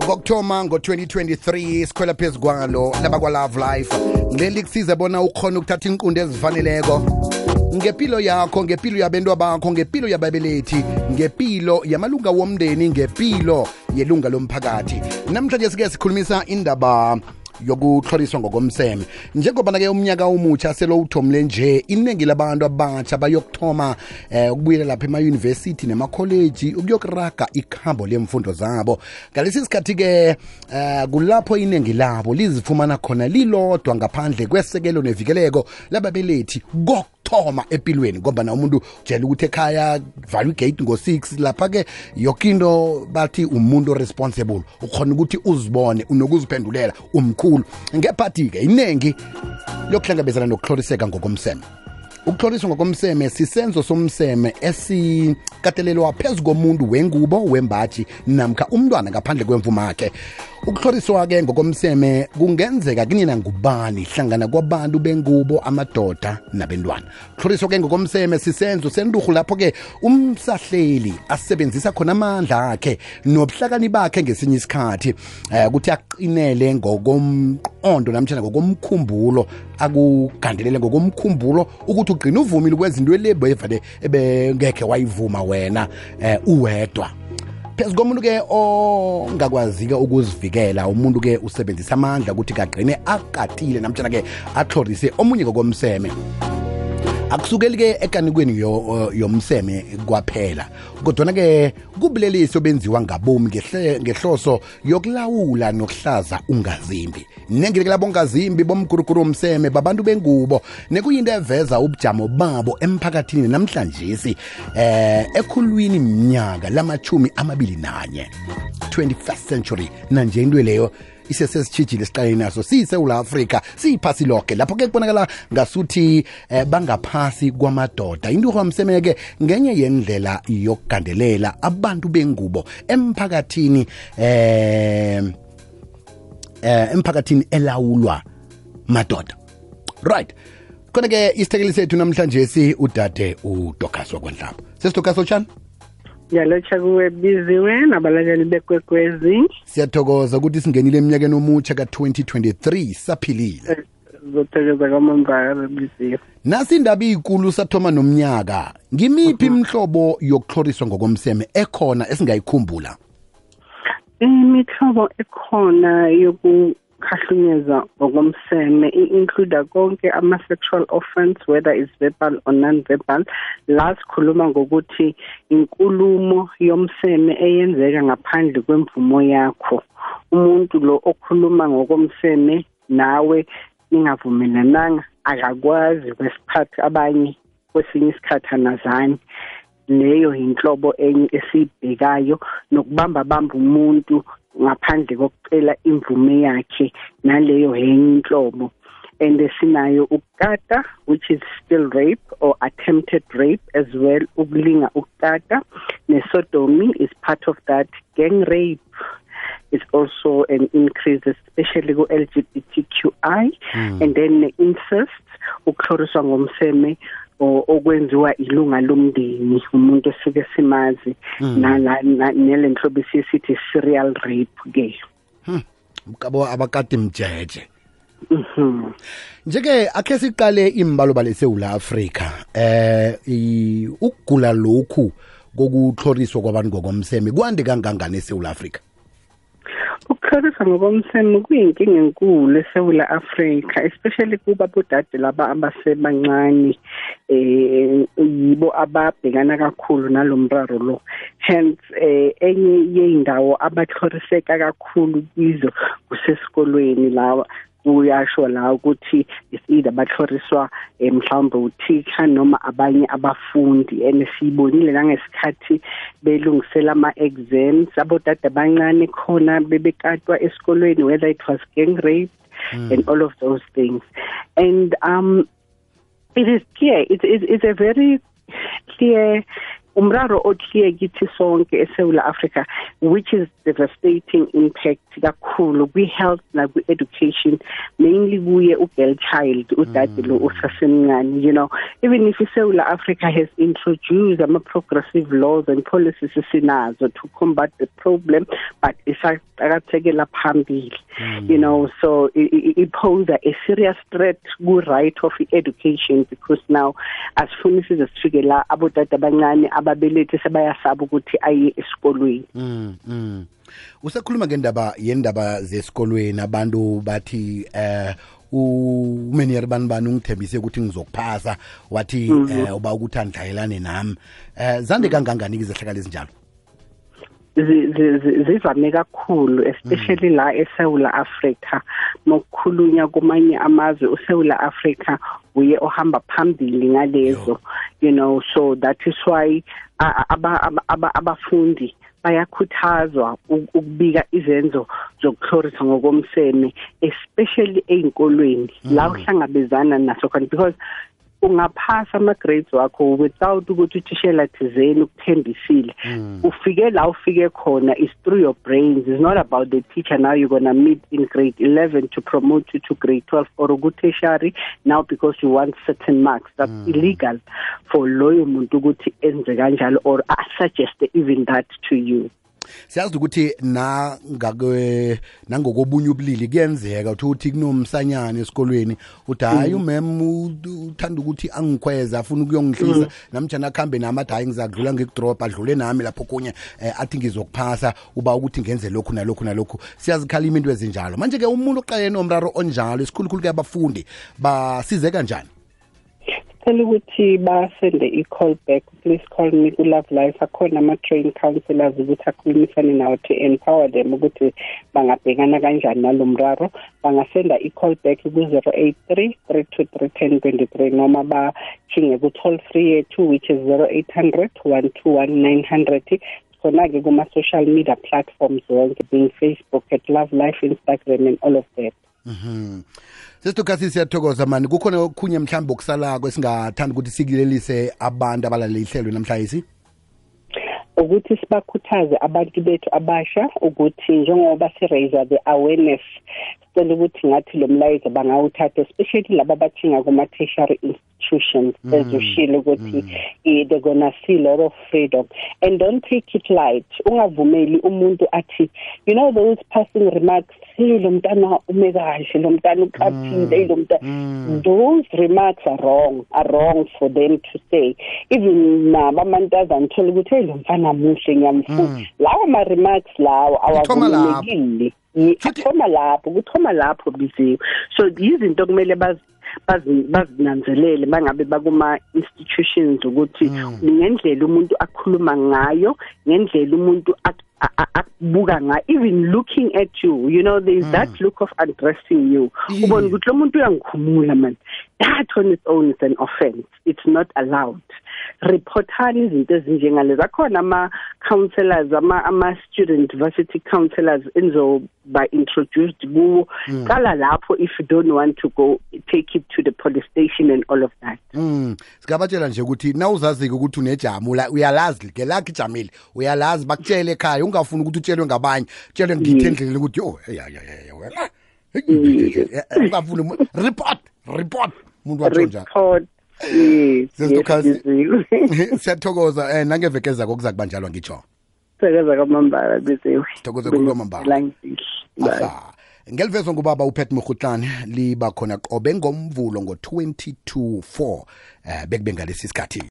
Ngokuthoma ngo-2023 sikhwela phezu kwalo labakwa Love Life ngileli kusize bona ukhona ukuthatha inqundo ezifaneleko ngempilo yakho, ngempilo yabantwana bakho, ngempilo yababelethi, ngempilo yamalunga womndeni, ngempilo yelunga lomphakathi. Namhlanje sike sikhulumisa indaba yokuhloliswa ngokomseme. Njengoba ke umnyaka omutsha selo uthomle nje, iningi labantu abatsha bayokuthoma ukubuyela lapha ema-university nema-college ukuyokuraga ikhambo lemfundo zabo. Ngalesi sikhathi ke kulapho iningi labo lizifumana khona lilodwa ngaphandle kwesekelo nevikeleko lababelethi thoma empilweni ngoba na umuntu ujela ukuthi ekhaya value gate ngo-6 lapha ke yokinto bathi umuntu responsible ukhona ukuthi uzibone unokuziphendulela umkhulu ngephathi ke inengi lokuhlangabezana nokuhloliseka ngokomseme. Ukuhloliswa ngokomseme sisenzo somseme esikatelelwa phezu komuntu wengubo wembaji namkha umntwana ngaphandle kwemvumo yakhe. Ukuhloliswa ke ngokomseme kungenzeka kunina ngubani hlangana kwabantu bengubo, amadoda nabantwana. Ukuhloliswa ke ngokomseme sisenzo senduhu lapho ke umsahleli asebenzisa khona amandla akhe nobuhlakani bakhe ngesinye isikhathi ukuthi aqinele ngokomqondo namtjana ngokomkhumbulo, akugandelele ngokomkhumbulo ukuthi ugcina uvumile kwezinto elebevale ebengekhe wayivuma wena uwedwa. Phezu komuntu ke ongakwazi-ke ukuzivikela, umuntu ke usebenzisa amandla ukuthi kagqine akatile namtshana ke atlhorise omunye ngokomseme. Akusukeli ke ekanikweni yomseme kwaphela, kodwa ke kubulelisi obenziwa ngabomi ngehloso yokulawula nokuhlaza ungazimbi. Nengike labo ongazimbi bomguruguru womseme babantu bengubo nekuyinto eveza ubujamo babo emphakathini namhlanje ekhulwini mnyaka lama-21 21st century nanje into leyo isesesitshijile siqale naso siyiSewula Afrika siyiphasi lonke lapho ke kubonakala ngasuthi bangaphasi kwamadoda. Into kwamseme ke ngenye yendlela yokugandelela abantu bengubo emphakathini emphakathini elawulwa madoda. Right, khona ke isithekeli sethu namhlanje udade uDokaswa Kwanhlaba. Sesidokaswa tshani? Yalotsha kuwe biziwe nabalaleli bekwekwezi. Siyathokoza ukuthi singenile eminyakeni omutsha ka-2023 saphilile. Zothokoza kwamambala biziwe. Nasi indaba inkulu sathoma nomnyaka. Ngimiphi imihlobo yokuhloriswa ngokomseme ekhona esingayikhumbula? Imihlobo ekhona yokukhahlunyezwa ngokomseme include konke ama-sexual offense, whether it's verbal or non-verbal. La sikhuluma ngokuthi inkulumo yomseme eyenzeka ngaphandle kwemvumo yakho. Umuntu lo okhuluma ngokomseme nawe ningavumelananga akakwazi kwesikhathi abanye kwesinye isikhathi anazani. Leyo inhlobo enye esibhekayo nokubamba umuntu ngaphandle kokucela imvume yakhe, naleyo enye inhlobo. And sinayo ukukata, which is still rape or attempted rape as well. Ukulinga ukukata nesodomy is part of that. Gang rape is also an increase, especially go LGBTQI. And then incest, ukuhloriswa ngomseme okwenziwa ilunga lomndeni umuntu esike simazi nale nhlobo sithi serial rape ke. Mkabo abakati mjeje. Njeke akhe siqale imbalobalo eSewula Afrika ukugula lokhu kokuhloriswa kwabantu ngokomseme kwande kangangani eSewula Afrika? Ukuhloriswa ngokomseme kuyinkinga enkulu eSewula Afrika, especially kuba bodade laba abasebancane yibo ababhekana kakhulu nalomraro lo. Hence enye yeindawo abahloriseka kakhulu kizo kusesikolweni lawa uyasho la ukuthi either bahloriswa mhlawumbe uthisha noma abanye abafundi. And sibonile nangesikhathi belungisela ama-exams abodade abancane khona bebekatwa esikolweni, whether it was gang rape and all of those things. And it is clear, it's a very clear umraro othliye kithi sonke eSouth Africa, which is devastating impact kakhulu kwi-health na kwi-education, mainly kuye u-girl child, udade lo usasemncane. You know, even if South Africa has introduced progressive laws and policies sinazo to combat the problem, but isaqakathekela phambili. You know, so it poses a serious threat to right of education, because now as soon as sifike la abodade abancane ababelethi sebayasaba ukuthi aye esikolweni. Usakhuluma yendaba zesikolweni, abantu bathi uMenyer Banibani ungithembise ukuthi ngizokuphasa, wathi uba ukuthi andlayelane nami. Zande kangangani izehlakalo ezinjalo? Zivame kakhulu, especially la eSouth Africa. Mokukhulunywa kumanye amazwe uSouth Africa uye ohamba phambili ngalezo. You know, so that is why abafundi bayakhuthazwa ukubika izenzo zokuhlorisa ngokomseme, especially eyinkolweni la uhlangabezana naso khona, because ungaphasa ama-grades wakho without ukuthi uthishela thizeni ukuthembisile. Ufike la ufike khona is through your brains. It's not about the teacher now you're going to meet in grade 11 to promote you to grade 12 or a good tertiary now because you want certain marks. That's illegal for loyo muntu ukuthi enze kanjalo or suggest even that to you. Siyazi ukuthi nangokobunye ubulili kuyenzeka ukuthi kunomsanyana esikolweni uthi hayi umem uthanda ukuthi angikhweza afuna ukuyongihlisa namtjana akhambe nami athi hayi ngizakudlula ngikudrop adlule nami lapho kunye athi ngizokuphasa uba ukuthi ngenze lokhu nalokhu. Siyazikhalima into ezinjalo. Manje ke umuntu oqalene nomraro onjalo esikhulukhulu ke abafundi basize kanjani? Tell ukuthi basende i-call back, please call me ku-Love Life. Akhona ama-train counselors ukuthi akhulumisane nawo to empower them ukuthi bangabhekana kanjani nalo mraro. Bangasenda i-call back ku-083 323 1023 noma bathinge ku-toll free yethu which is 0800 121 900. Khona-ke kuma-social media platforms wonke, being Facebook at Love Life, Instagram and all of that. Sesitukasi siyathokoza mani, kukhona okhunye mhlawumbe okusalako esingathanda ukuthi sikulelise abantu abalalele ihlelo namhlanje, ukuthi sibakhuthaze abantu bethu abasha ukuthi njengoba si-raise the awareness, sicela ukuthi ngathi lo mlayezo bangawuthatha, especially laba bathinga kuma-tertiary institutions ezoshilo ukuthi they're gonna see a lot of freedom, and don't take it light. Ungavumeli umuntu athi, you know, those passing remarks, hey lo mntana ume kahle, lo mntana uqaphile, lo mntana, those remarks are wrong for them to say. Even nabamantazana thola ukuthi hey lo mfana muhle ngiyamfuna, lawo ma-remarks lawo awavumelekile. Kuthoma lapho biziwe. So izinto kumele bazinanzelele bangabe bakuma institutions ukuthi ngendlela umuntu akhuluma ngayo, ngendlela umuntu akubuka ngayo, even looking at you, you know, there is that look of addressing you. Ubona ukuthi lo muntu uyangikhumula man, that on its own is an offense. It's not allowed. Reportani izinto ezinjengalezo. Akhona ama-counselors, ama-student varsity counselors enzoba introduced kuwo. Qala lapho if you don't want to go, take it to the police station and all of that. Sikabatshela nje ukuthi nawuzazi ukuthi unejamu la uyalazi ke lakhe ijamile, uyalazi bakutshele ekhaya, ungafuni ukuthi utshelwe ngabanye, utshelwe ngithendlele ukuthi yo ungafuni report umuntu wathonja. Siyathokoza nangevekeza kokuza kubanjalwa ngitsho. Thokoza kaMambala biziwe. Thokoza kuMambala. Ngelivezwe ngubaba uPet Mkhutlane liba khona qobe ngomvulo ngo 22:04 bekube ngalesi sikhathi.